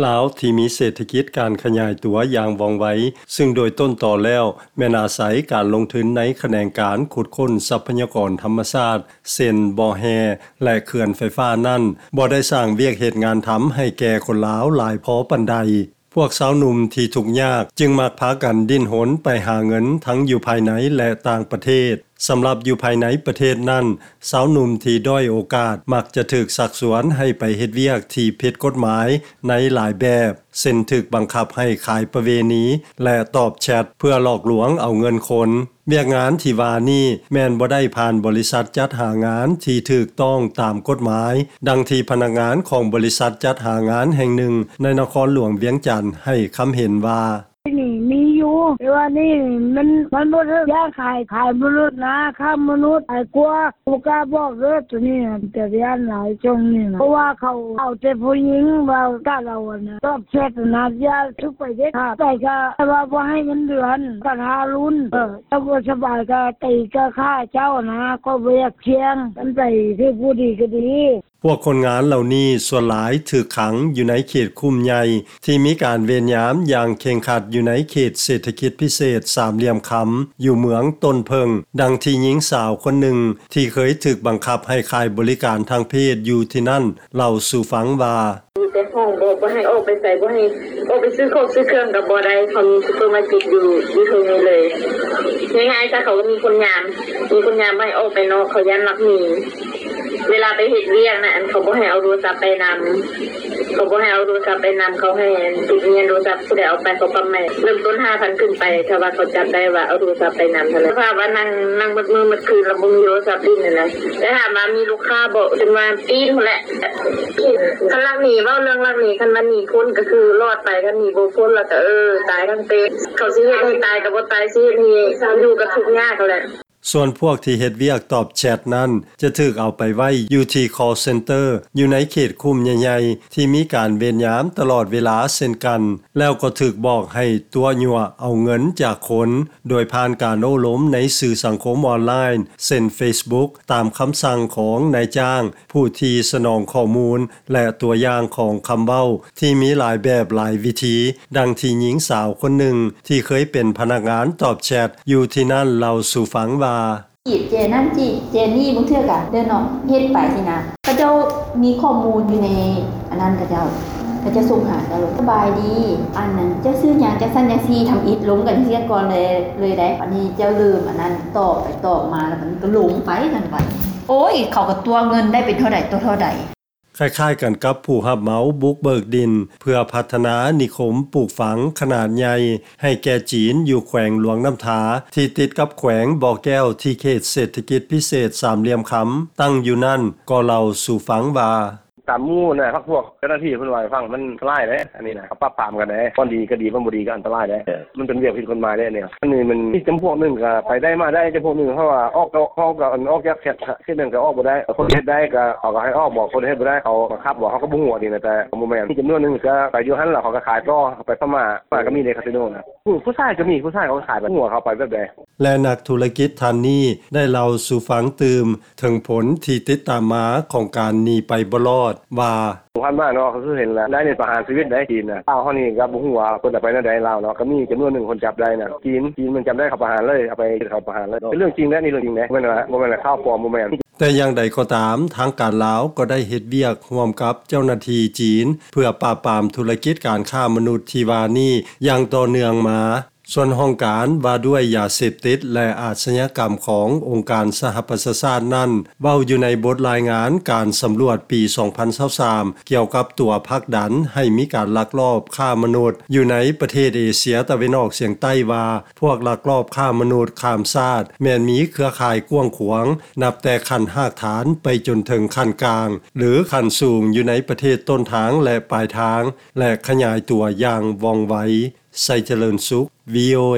ລາວທີ່ມີເສດຖະກິດການຂະຫຍາຍຕົວຢ່າງວ່ອງໄວ, ຊຶ່ງໂດຍຕົ້ນຕໍແລ້ວແມ່ນອາໄສການລົງທຶນໃນຂະແໜງການຂຸດຄົ້ນຊັບພະຍາກອນທຳມະຊາດ ເຊັ່ນ ບໍ່ແຮ່ ແລະ ເຂື່ອນໄຟຟ້ານັ້ນ, ບໍ່ໄດ້ສ້າງວຽກເຮັດງານທຳໃຫ້ແກ່ຄົນລາວຫຼາຍພໍປານໃດ. ພວກຊາວໜຸ່ມທີ່ທຸກຍາກຈຶ່ງມັກພາກັນດີ້ນຮົນໄປຫາເງິນທັງຢູ່ພາຍໃນ ແລະ ຕ່າງປະເທດ. ສຳລັບຢູ່ພາຍໃນປະເທດນັ້ນ, ຊາວໜຸ່ມທີ່ດ້ອຍໂອກາດມັກຈະຖືກຊັກຊວນໃຫ້ໄປເຮັດວຽກທີ່ຜິດກົດໝາຍໃນຫຼາຍແບບ, ເຊັ່ນ ຖືກບັງຄັບໃຫ້ຂາຍປະເວນີ ແລະ ຕອບແຊັດເພື່ອຫຼອກລວງເອົາເງິນຄົນ. ວຽກງານທີ່ວ່ານີ້ແມ່ນບໍ່ໄດ້ຜ່ານບໍລິສັດຈັດຫາງານທີ່ຖືກຕ້ອງຕາມກົດໝາຍ, ດັ່ງທີ່ພະນັກງານຂອງບໍລິສັດຈັດຫາງານແຫ່ງໜຶ່ງໃນນະຄອນຫຼວງວຽງຈັນໃຫ້ຄຳເຫັນວ່າ. ນີ້ມີຢູ່ ແຕ່ວ່ານີ້ມັນ ມັນບໍ່ຖືກ ຢາກຂາຍ ຂາຍມະນຸດນະ ຄ້າມະນຸດຫຼາຍກວ່າ ບໍ່ກ້າບອກເດີ ໂຕນີ້ນະ ເປັນຕາຢ້ານຫຼາຍຊ່ວງນີ້ນະ ເພາະວ່າເຂົາເອົາແຕ່ຜູ້ຍິງ ວ່າການເອົາອັນຕອບແຊັດນະ ຢ່າຖືກໄປເດັດຂາດ ໄປກະວ່າບໍ່ໃຫ້ເງິນເດືອນ ກະທາລຸນ ເອີ ຖ້າບໍ່ສະບາຍກະຕີກະຂ້າເຈົ້ານະ ຂ້ອຍບໍ່ຢາກສ່ຽງ ຄັນໄປຖືກຜູ້ດີກະດີ. ພວກຄົນງານເຫຼົ່ານີ້ສ່ວນຫຼາຍຖືກຂັງຢູ່ໃນເຂດຄຸ້ມໃຫຍ່ ທີ່ມີການເວນຍາມຢ່າງເຄັ່ງຄັດຢູ່ໃນເຂດເສດຖະກິດພິເສດສາມຫຼ່ຽມຄຳ ຢູ່ເມືອງຕົ້ນເຜິ້ງ, ດັ່ງທີ່ຍິງສາວຄົນໜຶ່ງທີ່ເຄີຍຖືກບັງຄັບໃຫ້ຂາຍບໍລິການທາງເພດຢູ່ທີ່ນັ້ນເລົ່າສູ່ຟັງວ່າ. ຢູ່ແຕ່ຫ້ອງ ບໍ່ ບໍ່ໃຫ້ອອກໄປໃສ ບໍ່ໃຫ້ອອກໄປຊື້ຂອງຊື້ເຄື່ອງກໍບໍ່ໄດ້ ເຂົາມີຊຸບເປີມາເກັດຢູ່ ຢູ່ເທິງນີ້ເລີຍ. ງ່າຍໆຊະ ເຂົາກໍມີຄົນຍາມ ມີຄົນຍາມບໍ່ໃຫ້ອອກໄປນອກ ເຂົາຢ້ານລັກໜີ. ເວລາໄປເຮັດວຽກນະ ອັນ ເຂົາບໍ່ໃຫ້ເອົາໂທລະສັບໄປນຳ ເຂົາບໍ່ໃຫ້ເອົາໂທລະສັບໄປນຳ ເຂົາໃຫ້ຕິດເງືອນໂທລະສັບ ຜູ້ໃດເອົາໄປເຂົາປັບໃໝ. ເລີ່ມຕົ້ນຫ້າພັນຂຶ້ນໄປ ຖ້າວ່າເຂົາຈັບໄດ້ວ່າເອົາໂທລະສັບໄປນຳຫັ້ນນະ. ສະພາບວ່ານັ່ງ ນັ່ງໝົດມື້ໝົດຄືນ ແລ້ວບໍ່ມີໂທລະສັບຫຼິ້ນຫັ້ນນະ. ແຕ່ຖາມວ່າມີລູກຄ້າບໍ່ ຈົນວ່າປີ້ນພຸ້ນແຫຼະ. ຄັນລັກໜີ ເວົ້າເລື່ອງລັກໜີ ຄັນວ່າໜີພົ້ນກໍຄືລອດໄປ ຄັນໜີບໍ່ພົ້ນແລ້ວກໍ ເອີ ຕາຍທັງເປັນ. ເຂົາຊິເຮັດໃຫ້ຕາຍກໍບໍ່ຕາຍ ຊິເຮັດໃຫ້ຢູ່ກໍທຸກຍາກຫັ້ນແຫຼະ. ສ່ວນພວກທີ່ເຮັດວຽກຕອບແຊັດນັ້ນ ຈະຖືກເອົາໄປໄວ້ຢູ່ທີ່ຄໍເຊັນເຕີ ຢູ່ໃນເຂດຄຸ້ມໃຫຍ່ໆ ທີ່ມີການເວນຍາມຕະຫຼອດເວລາເຊັ່ນກັນ, ແລ້ວກໍຖືກບອກໃຫ້ຕົວະຍົວະເອົາເງິນຈາກຄົນ ໂດຍຜ່ານການໂອ້ລົມໃນສື່ສັງຄົມອອນລາຍນ໌ ເຊັ່ນ ເຟສບຸກ ຕາມຄຳສັ່ງຂອງນາຍຈ້າງ ຜູ້ທີ່ສະໜອງຂໍ້ມູນ ແລະ ຕົວຢ່າງຂອງຄຳເວົ້າທີ່ມີຫຼາຍແບບຫຼາຍວິທີ, ດັ່ງທີ່ຍິງສາວຄົນໜຶ່ງທີ່ເຄີຍເປັນພະນັກງານຕອບແຊັດຢູ່ທີ່ນັ້ນເລົ່າສູ່ຟັງວ່າ. ຈີບເຈນັ້ນຈີບເຈນີ້ ບາງເທື່ອກະເດີນອອກເຮັດໄປຊີ້ນະ. ເຂົາເຈົ້າມີຂໍ້ມູນຢູ່ໃນອັນນັ້ນ ເຂົາເຈົ້າ ເຂົາເຈົ້າສົ່ງຫາເຈົ້າໂລດ. ສະບາຍດີ ອັນນັ້ນ ເຈົ້າຊື່ຫຍັງ ຈັ່ງຊັ້ນຈັ່ງຊີ້ ທຳອິດລົມກັນເສຍກ່ອນເລີຍ ເລີຍໄດ໋. ອັນນີ້ເຈົ້າເລີ່ມອັນນັ້ນ ຕອບໄປຕອບມາ ແລ້ວມັນກໍຫຼົງໄປນັ້ນໄປ. ໂອ້ຍ ເຂົາກໍຕົວະເງິນໄດ້ເປັນເທົ່າໃດຕໍ່ເທົ່າໃດ. ຄ້າຍໆກັນກັບຜູ້ຮັບເໝົາບຸກເບີກດິນເພື່ອພັດທະນານິຄົມປູກຝັງຂະໜາດໃຫຍ່ໃຫ້ແກ່ຈີນ ຢູ່ແຂວງຫຼວງນ້ຳທາ ທີ່ຕິດກັບແຂວງບໍ່ແກ້ວ ທີ່ເຂດເສດຖະກິດພິເສດສາມຫຼ່ຽມຄຳຕັ້ງຢູ່ນັ້ນ ກໍເລົ່າສູ່ຟັງວ່າ. ຕາມໝູ່ນະ ພັກພວກເຈົ້າໜ້າທີ່ເພິ່ນວ່າໃຫ້ຟັງ ມັນອັນຕະລາຍເດ້ ອັນນີ້ນະ ເຂົາປາບປາມກັນເດ້ ບ່ອນດີກໍດີ ບ່ອນບໍ່ດີກໍອັນຕະລາຍເດ້. ມັນເປັນວຽກຜິດກົດໝາຍເດ້ ແນວອັນນີ້ມັນມີຈຳພວກໜຶ່ງກໍໄປໄດ້ມາໄດ້ ຈຳພວກໜຶ່ງເຂົາວ່າອອກກໍອອກ ກໍອອກຈາກເຂດ ເຂດນັ້ນກໍອອກບໍ່ໄດ້. ຄົນເຮັດໄດ້ກໍເຂົາກໍໃຫ້ອອກ ບອກຄົນເຮັດບໍ່ໄດ້ ເຂົາບັງຄັບບໍ່ ເຮົາກໍບໍ່ຮູ້ອັນນີ້ນະ. ແຕ່ບໍ່ແມ່ນ ມີຈຳນວນໜຶ່ງກໍໄປຢູ່ຫັ້ນ ແລ້ວເຂົາກໍຂາຍຕໍ່ ເຂົາໄປພະມ້າ ພະມ້າກໍມີເດ້ ຄາສິໂນນະ. ຜູ້ ຜູ້ຊາຍກໍມີ ຜູ້ຊາຍເຂົາກໍຂາຍ ບໍ່ຮູ້ວ່າເຂົາໄປແບບໃດ. ແລະ ນັກທຸລະກິດທ່ານນີ້ໄດ້ເລົ່າສູ່ຟັງຕື່ມເຖິງຜົນທີ່ຕິດຕາມມາຂອງການໜີໄປບໍ່ລອດວ່າ. ຜ່ານມາເນາະ ກໍຄືເຫັນແລ້ວ ໄດ້ນີ້ປະຫານຊີວິດໄດ໋ ຈີນນະ. ລາວເຮົານີ້ກໍບໍ່ຮູ້ວ່າເພິ່ນຈະໄປແນວໃດ ລາວເນາະ ກໍມີຈຳນວນໜຶ່ງຄົນຈັບໄດ້ນະ. ຈີນ ຈີນມັນຈັບໄດ້ ເຂົາປະຫານເລີຍ ເອົາໄປເຮັດ ເຂົາປະຫານເລີຍ. ເປັນເລື່ອງຈິງເດ້ ນີ້ເລື່ອງຈິງເດ້ ບໍ່ແມ່ນວ່າ ບໍ່ແມ່ນຂ່າວປອມ ບໍ່ແມ່ນ. ແຕ່ຢ່າງໃດກໍຕາມ ທາງການລາວກໍໄດ້ເຮັດວຽກຮ່ວມກັບເຈົ້າໜ້າທີ່ຈີນ ເພື່ອປາບປາມທຸລະກິດການຄ້າມະນຸດທີ່ວ່ານີ້ຢ່າງຕໍ່ເນື່ອງມາ. ສ່ວນຫ້ອງການວ່າດ້ວຍຢາເສບຕິດ ແລະ ອາຊະຍາກຳຂອງອົງການສະຫະປະຊາຊາດນັ້ນ ເວົ້າຢູ່ໃນບົດລາຍງານການສຳຫຼວດປີສອງພັນຊາວສາມ ກ່ຽວກັບຕົວຜັກດັນໃຫ້ມີການລັກລອບຄ້າມະນຸດຢູ່ໃນປະເທດເອເຊຍຕາເວັນອອກສຽງໃຕ້ວ່າ ພວກລັກລອບຄ້າມະນຸດຂ້າມຊາດແມ່ນມີເຄືອຂ່າຍກວ້າງຂວາງ ນັບແຕ່ຂັ້ນຮາກຖານໄປຈົນເຖິງຂັ້ນກາງ ຫຼື ຂັ້ນສູງຢູ່ໃນປະເທດຕົ້ນທາງ ແລະ ປາຍທາງ ແລະ ຂະຫຍາຍຕົວຢ່າງວ່ອງໄວ. ໄຊຈະເລີນສຸກ ວີໂອເອ.